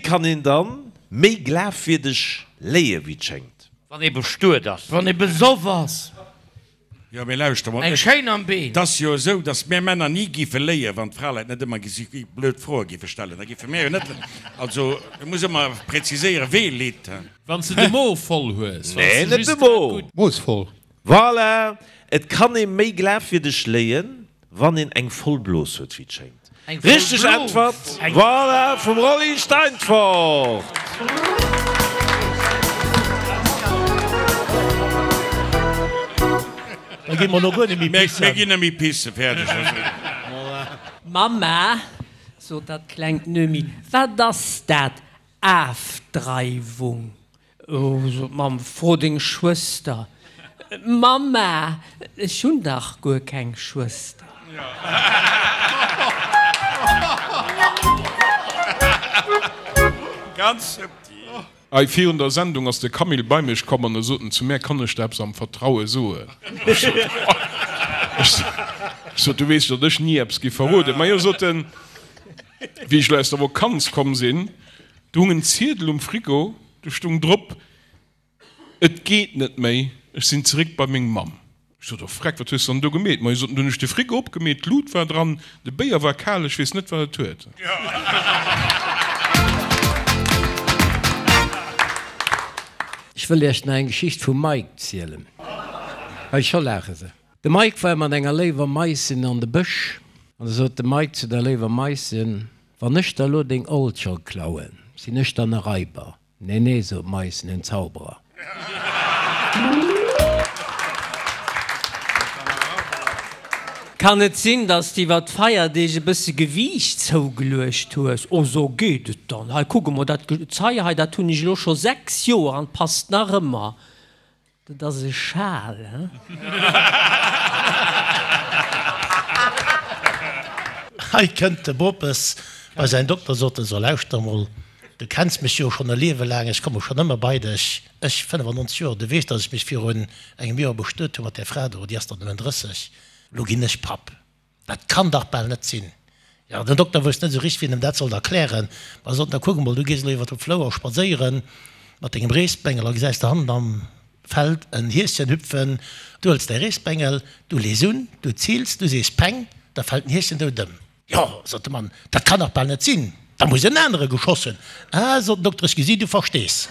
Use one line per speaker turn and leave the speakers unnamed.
kann een dann méi glafwierdeg léie wéi et schéngt?
Wann ee bestuet ass.
Wann ee besoff ass.
Jo, mee lauschter mol,
Eng schéin am Been.
Et ass jo esou, datt mär Männer ni géife léien, wann d'Fraleit net ëmmer gesi blöd Froe géife stellen. Da géife mär jo net, also et muss ëmmer präziséieren, wee litt.
Wann s de de Mo voll hues.
Nee, net de Mo.
Mo is voll.
Voilà! Et kann ee méi glafwierdeg léien, Wann een eng voll Blos huet, wéi et schéngt.
Eng voll
Richteg
Blos!
Äntwert, voilà, vum Rolly Steinfort!
Da gi mer elo guer net méi pissen.
Mir ginn net méi pissen, fäerdeg.
Mamma, sot dat klengt Noemi, wat ass dat, Afdreiwung? Oh, sot d'Mamm, fro deng Schwëster. Mamma, ech hunn dach guer keng Schwëster.
Ganz subtil.
Hei virun der Sendung ass de Camille bei mech komm an e sot en zu mär, Kann ech der eppes am Vertraue soen? Ech sot, Ech sot, du weess, datt ech ni eppes giff verroden. Majo, sot en, wéi ech elo aus der Vokanz komm sinn, Do hung en Ziedel um Frigo, do stung drop, Et geet net méi, ech sinn zeréck bei meng Mamm. Ech sot, Oh Freck, wat hues de dann do gemeet? Ma hie sot, Du hunn ech de Frigo opgemeet, d'Lut war dran, de Béier war kal, ech weess net, wat et huet.
Ech wëll iech nach eng Geschicht vum Mike zielen. Hei, scho laache se. De Mike war mat enger léiwer Maissin an de Bësch, an da sot de Mike zu der léiwer Maissin, Wann ech der elo deng Oldschong klauen, sinn ech dann e Raiber? Nee, nee, sot d'Maissin, en Zauberer.
Kann et sinn, dass de iwwer d'Feierdeeg e bësse Gewiicht zougeluecht hues? Oh, so geet et dann. Hei, kuck emol, dat Gezei hei, dat hunn ech elo scho 6 Joer an et passt nach ëmmer. Dat ass e Schal, he?
Hei kënnt de Bopes bei säin Dokter, sot en, So lauschter emol, du kenns mech jo schonn e Liewe laang, ech komme schonn ëmmer bei dech, ech, 95 Joer, du weess, datt ech mech virun engem Joer bestuet hu mat där Fra do, déi ass der nëmmen 30, elo ginn ech Papp. Dat kann dach bal net sinn. Jo, den Dokter wousst net esou richteg, wéi en em dat sollt erklären. Ma e sot, Na kuck emol, du gees elo iwwer de Flouer spadséiere mat dengem Reesbengel a gesäis do hannen am Feld en Hieschen hüpfen. Du hëls däi Reesbengel, du lees un, du zils, du sees Peng, da fält den Hieschen dout ëm. Jo, sot de Mann, dat kann dach bal net sinn, da muss en anere geschoss hunn. Ah, sot den Dokter, ech gesi, du verstees.